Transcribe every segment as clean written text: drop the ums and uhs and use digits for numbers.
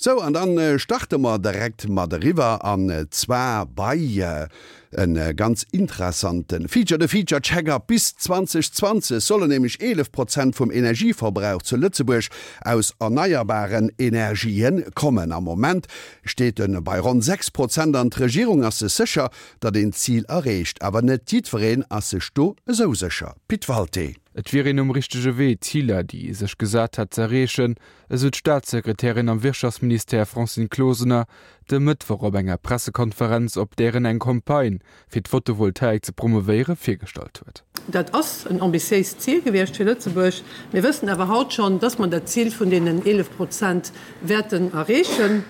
Sou, an dann starte mer direkt mat eriwwer, an zwar bei e ganz interessante Feature, de Feature Check-up. Bis 2020 sollen nämlech 11 Prozent vum Energieverbrauch zu Lëtzebuerg aus erneierbaren Energien kommen. Am Moment steet e bei ronn 6 Prozent an d'Regierung ass sech sécher, datt een d'Zil erreecht. Awer net jiddwereen ass sech do esou sécher. Pit Walté. Et wier een um richtege Wee, d'Ziler, déi ee sech gesat hätt, z'erreechen, esou d'Staatssekretärin am Wirtschaftsministère Francine Closener de Mëttwoch op enger Pressekonferenz, op där en eng Campagne fir d'Photovoltaik ze promouvéiere virgestallt huet. Dat ass en ambitiéist Zil gewiescht fir Lëtzebuerg. Mir wëssen awer haut schonn, dass mer dat Zil vun deenen 11 Prozent wäerten erreechen.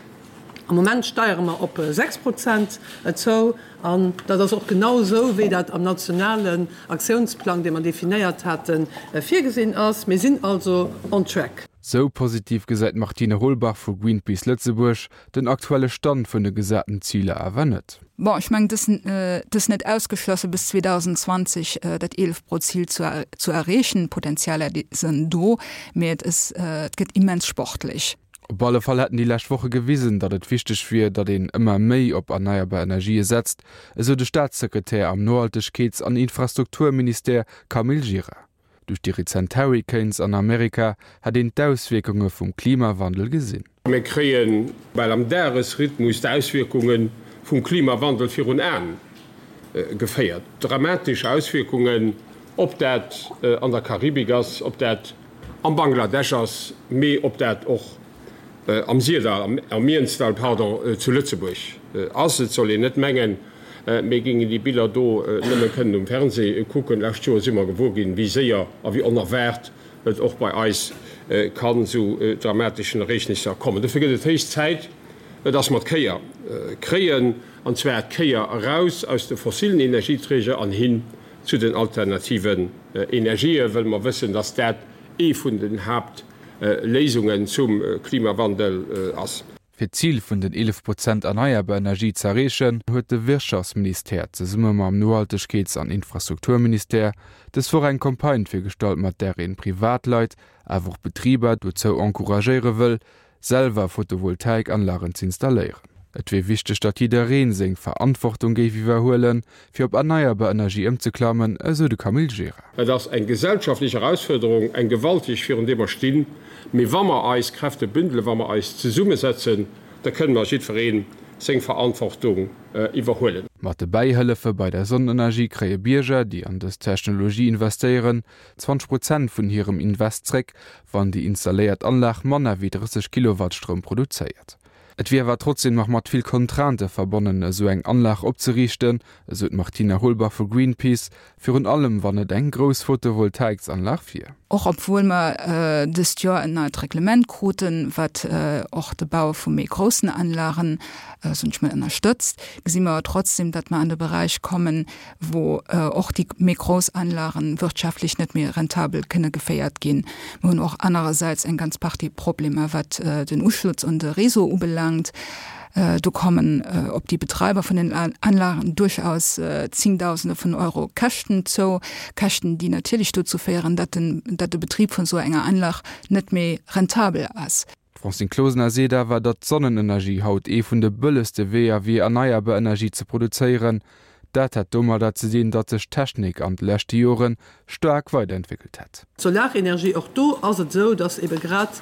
Am Moment steiere mer op 6 Prozent zou. An dat ass och genau esou, wéi dat am nationalen Aktiounsplang, dee mer definéiert haten, virgesinn ass. Mir sinn also on track. Sou positiv gesäit d'Martine Holbach vu Greenpeace Lëtzebuerg den aktuelle Stand vun de gesaten Ziler awer net. Bon, ech mengen, et ass net ausgeschlossen, bis 2020 dat 11 Prozil zu erreechen. D'Potenzialer sinn do, mee et gëtt immens sportlech. Op alle Fall hätten déi lescht Woche gewisen, datt et wichteg wier, datt een ëmmer méi op erneierbar Energië setzt, esou de Staatssekretär am Nohaltegkeets an Infrastrukturministère Camille Gira. Duerch déi rezent Hurricanes an Amerika hätt een d'Auswierkunge vum Klimawandel gesinn. Mir kréie bal am Dagesrhythmus d'Auswierkunge vum Klimawandel virun Aen geféiert. Dramatesch Auswierkungen, ob dat an der Karibik ass, ob dat am Bangladesch ass, mee ob dat och am Syrdall, am Mienzdall, pardon, zu Lëtzebuerg ass. Et soll een net mengen, mir géingen déi Biller do nëmme kënnen um Fernseh kucken. Lescht Joer si mer gewuer ginn, wéi séier a wéi onerwaart et och bei eis kann zu dramateschen Ereegnisser kommen. Dofir gëtt et héich Zäit, dass mer d'Kéier kréien, an zwar d'Kéier eraus aus de fossilen Energieträger an hin zu den alternativen Energien, wëll mer wëssen, dass dat ee vun den Haapt Léisungen zum Klimawandel ass. Fir d'Zil vun den 11 Prozent erneierbar Energie z'erreechen, huet de Wirtschaftsministère zesumme mam Nohaltegkeets an Infrastrukturministère dës Woch eng Campagne virgestallt, mat där een Privatleit, awer och Betriber dozou encouragéiere wëll, selwer Photovoltaikanlagen z'installéieren. Et wier wichteg, datt jiddereen seng Verantwortung géif iwwerhuelen, fir op erneierbar Energie ëmzeklammen, esou de Camille Gira. Et ass eng gesellschaftlech Erausfuerderung, eng gewalteg, virun deer mer stinn. Mee wa mer eis Kräfte bündelen, wa mer eis zesummesetzen, da kënne mer jiddweree seng Verantwortung iwwerhuelen. Mat de Bäihëllefe bei der Sonnenenergie kréie Bierger, déi an dës Technologie investéieren, 20 Prozent vun hirem Invest zréck, wann déi installéiert Anlag manner wéi 30 Kilowatt Stroum produzéiert. Et wier awer trotzdeem nach mat vill Contraintë verbonnen, esou eng Anlag opzeriichten, esou d'Martina Holbach vu Greenpeace, virun allem wann et eng grouss Photovoltaiksanlag wier. Och obwuel mer dëst Joer en neit Reglement kruten, wat och de Bau vu méi groussen Anlagen, soen ech mol, ënnerstëtzt, gesi mer awer trotzdeem, datt mer an de Beräich kommen, wou och déi méi grouss Anlagen wirtschaftlech net méi rentabel kënne geféiert ginn. Mir hunn och anerersäits eng ganz Partie Problemer, wat den Uschlutz un de Réseau ubelaangt. Do kommen op déi Betreiber vun den Anlagen duerchaus Zingdausende vun Euro Käschten zou, Käschten, déi natierlech dozou féieren, datt den, datt de Betrib vun esou enger Anlag net méi rentabel ass. D'Francine Closener seet awer, datt d'Sonnenenergie haut ee vun de bëllegste Weeër wier, erneierbar Energie ze produzéieren. Dat hätt domadder ze dinn, datt sech d'Technik an de leschte Jore staark weiderentwéckelt hätt. D'Solarenergie, och do ass et esou, datt ebe grad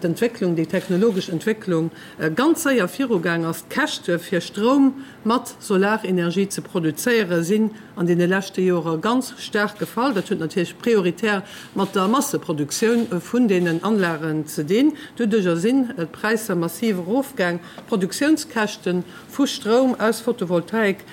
d'Entwécklung, déi technologesch Entwécklung ganz séier virugaang ass. D'Käschte fir Stroum mat Solarenergie ze produzéiere sinn an deene leschte Jore ganz staark gefall. Dat huet natierlech prioritär mat der Masseproduktioun vun deenen Anlagen ze dinn. Doduerjer sinn d'Präisser massiv erofgaang. D'Produktiounskäschte vu Stroum aus Photovoltaik,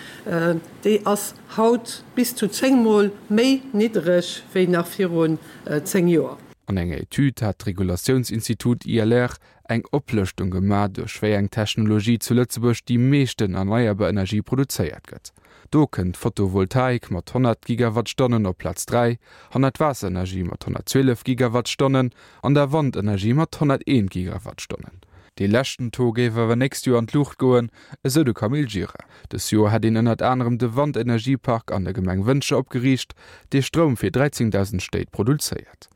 déi ass haut bis zu 10 Mol méi niddreg wéi nach virun 10 Joer. An enger Etüd hat d'Regulatiounsinstitut ILR eng Oplëschtung gemaach, duerch wéi eng Technologie zu Lëtzebuerg déi meeschten erneierbar Energie produzéiert gëtt. Do kënnt d'Photovoltaik mat 100 Gigawattstonnen op Plaz 3, hannert d'Waasserenergie mat 112 Gigawattstonnen an der Wandenergie mat 101 Gigawattstonnen. Dee leschten Taux géif awer nächst Joer an d'Luucht goen, esou de Camille Gira. Dës Joer hätt een ënnert anerem de Wandenergiepark an der Gemeng Wëntger opgeriicht, dee Stroum fir 13.000 Stéit produzéiert.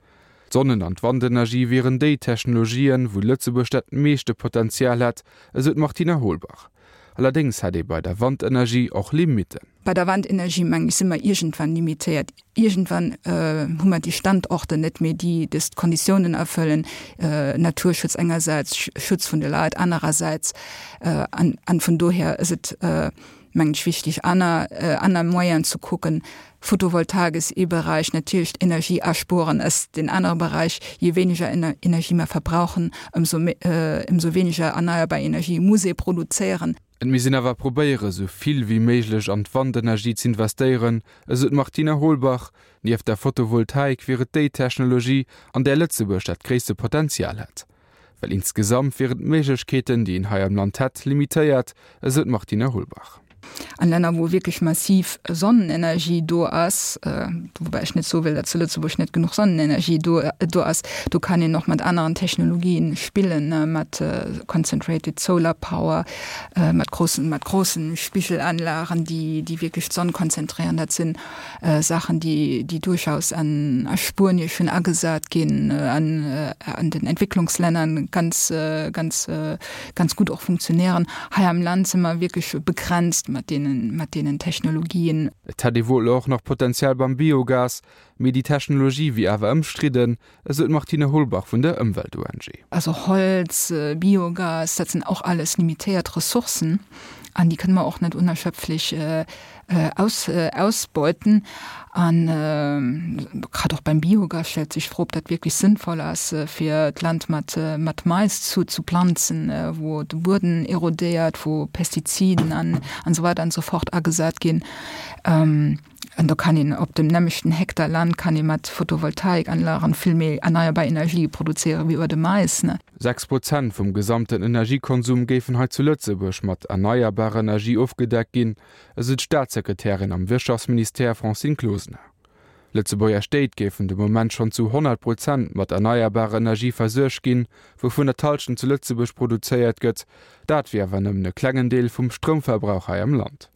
D'Sonnen an d'Wandenergie wieren déi Technologien, wou Lëtzebuerg dat meeschte Potenzial hätt, esou d'Martina Holbach. Allerdéngs hätt ee bei der Wandenergie och Limitten. Bei der Wandenergie, mengen ech, si mer iergendwann limitéiert. Iergendwann hu mer déi Standorter net méi, déi dës Konditiounen erfëllen, Naturschutz engersäits, Schutz vun de Leit anerersäits. An vun dohier ass et, mengen ech, wichtig, aner, aner Moyenen ze kucken. Photovoltaik ass ee Beräich, natierlech d'Energie aspueren ass deen anere Beräich. Je weniger Energie mer verbrauchen, ëmsou méi, ëmsou weniger erneierbar Energie muss ee produzéieren. Et misst een awer probéiere sou vill wéi méiglech an d'Wandenergie z'investéieren, esou d'Martina Holbach. Nieft der Photovoltaik wier et déi Technologie, an där Lëtzebuerg dat gréisste Potenzial hätt. Well insgesamt wieren d'Méiglechkeeten, déi een hei am Land hätt, limitéiert, esou d'Martine Holbach. An Länner, wou wierklech massiv Sonnenenergie do ass, woubäi ech net soe wëll, datt zu Lëtzebuerg net genuch Sonnenenergie do do ass, do kann een och mat aneren Technologien spillen, mat concentrated solar power, mat grossen mat grossen Spigelanlagen, déi déi wierklech d'Sonn konzentréieren. Dat sinn Saachen, déi, déi duerchaus an a Spuenie schonn agesat ginn, an an den Entwécklungslänner ganz, ganz, ganz gutt och funktionéieren. Hei am Land si mer wierklech begrenzt mat deenen, mat deenen Technologien. Et hätt ee wuel och nach Potenzial beim Biogas, mee déi Technologie wier awer ëmstridden, esou d'Martine Holbach vun der Ëmwelt-ONG. Also Holz, Biogas, dat sinn och alles limitéiert Ressourcen an déi kënne mer och net unerschöpflech aus, ausbeuten. An grad och beim Biogas stellt sech d'Fro, ob dat wierklech sënnvoll ass, fir d'Land mat, mat Mais zu, zu planzen, wou de Bueden erodéiert, wou Pestiziden an, an esou weider an esou fort agesat ginn. An do kann een op dem nämmlechten Hektar Land kann ee mat Photovoltaikanlagen vill méi erneierbar Energie produzéieren wéi iwwer de Mais. 6 Prozent vum gesamten Energiekonsum géifen hei zu Lëtzebuerg mat erneierbarer Energie ofgedeckt ginn, esou d'Staatssekretärin am Wirtschaftsministère Francine Closener. Lëtzebuerger Stéit géifen de Moment schonn zu 100 Prozent mat erneierbarer Energie versuergt ginn, wouvunner d'Hallschent zu Lëtzebuerg produzéiert gëtt. Dat wier awer nëmmen e klengen Deel vum Stroumverbrauch hei am Land.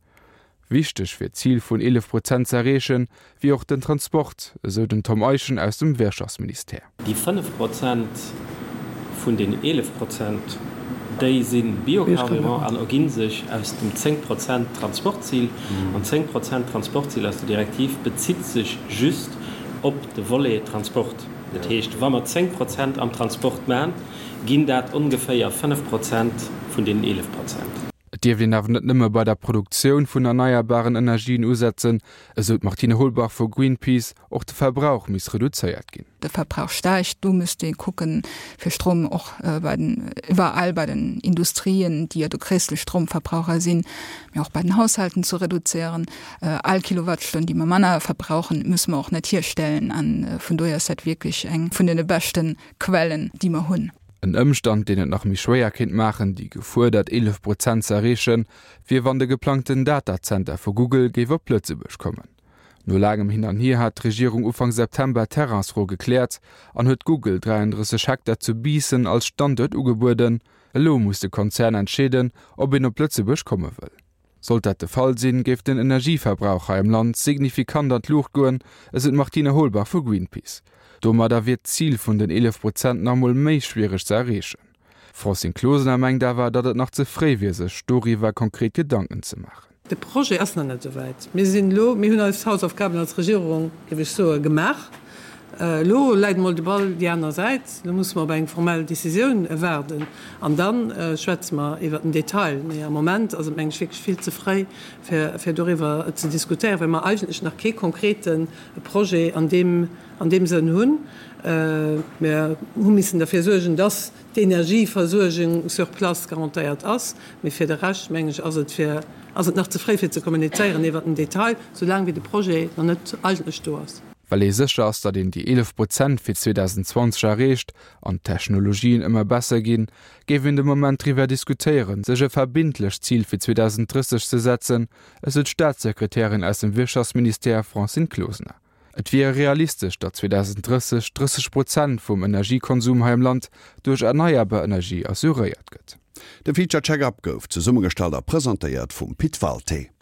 Wichteg fir d'Zil vun 11 Prozent ze erreechen, wier och den Transport, esou den Tom Eischen aus dem Wirtschaftsministère. Déi 5 Prozent vun den 11 Prozent, déi si Biocarburant an erginn sech aus dem 10 Prozent Transportzil. An 10 Prozent Transportzil aus der Direktiv bezitt sech just op de Volet Transport. Dat heescht, wa mer 10 Prozent am Transport maachen, ginn dat ongeféier 5 Prozent vun deenen 11 Prozent. Et dierft een awer net nëmme bei der Produktioun vun erneierbaren Energien usetzen, esou d'Martine Holbach vu Greenpeace. Och de Verbrauch misst reduzéiert ginn. De Verbrauch steigt, do misst ee kucken, fir Stroum och bei den, iwwerall bei den Industrien, déi jo de gréisste Stroumverbraucher sinn, mee och bei den Haushalten ze reduzéieren. All Kilowattstonn, déi mer manner verbrauchen, musse mer och net hierstellen. A vun dohier ass dat wierklech eng vun de beschte Quellen, déi mer hunn. En Ëmstand, deen et nach méi schwéier kéint maachen, déi gefuerdert 11 Prozent ze erreechen, wier wann de geplangten Datazenter vu Google géif op Lëtzebuerg kommen. No laangem Hin an Hier hat d'Regierung Ufank September d'Terrainsfro gekläert an huet Google 33 Hektar zu Biissen als Standuert ugebueden. Elo muss de Konzern entscheeden, ob een op Lëtzebuerg komme wëll. Sollt dat de Fall sinn, géif den Energieverbrauch hei am Land signifikant an d'Luucht goen, esou d'Martine Holbach vu Greenpeace. Domadder wier d'Zil vun den 11 Prozent nach emol méi schwiereg ze erreechen. D'Francine Closener mengt awer, datt et nach ze fréi wier, sech doriwwer konkret Gedanken ze maachen. De Projet ass nach net esouwäit. Mir sinn elo, mir hunn eis Hausaufgaben als Regierung, géif ech soen, gemaach. Elo läit emol de Ball déi aner Säit. Elo musse mer op eng formell Décisioun waarden an da schwätze mer iwwert den Detail. Mee am Moment ass et, meng ech, wierklech vill ze fréi, fir doriwwer ze diskutéieren, well mer eigentlech nach kee konkrete Projet an deem, an deem Sënn hunn. Mir hu missen derfir suergen, dass d'Energieversuergung sur place garantéiert ass. Mee fir de Rescht, meng ech, ass et fir, ass et nach ze fréi fir ze kommunizéieren iwwert den Detail, soulaang wéi de Projet nach net eigentlech do ass. Well ee sécher ass, datt een déi 11 Prozent fir 2020 erreecht an d'Technologien ëmmer besser ginn, géif een de Moment driwwer diskutéieren, sech e verbindlecht Zil fir 2030 ze setzen, esou d'Staatssekretärin aus dem Wirtschaftsministère Francine Closener. Et wier realistesch, datt 2030 30 Prozent vum Energiekonsum hei am Land duerch erneierbar Energie assuréiert gëtt. De Feature Check-Up gouf zesummegestallt a presentéiert vum Pit Walté.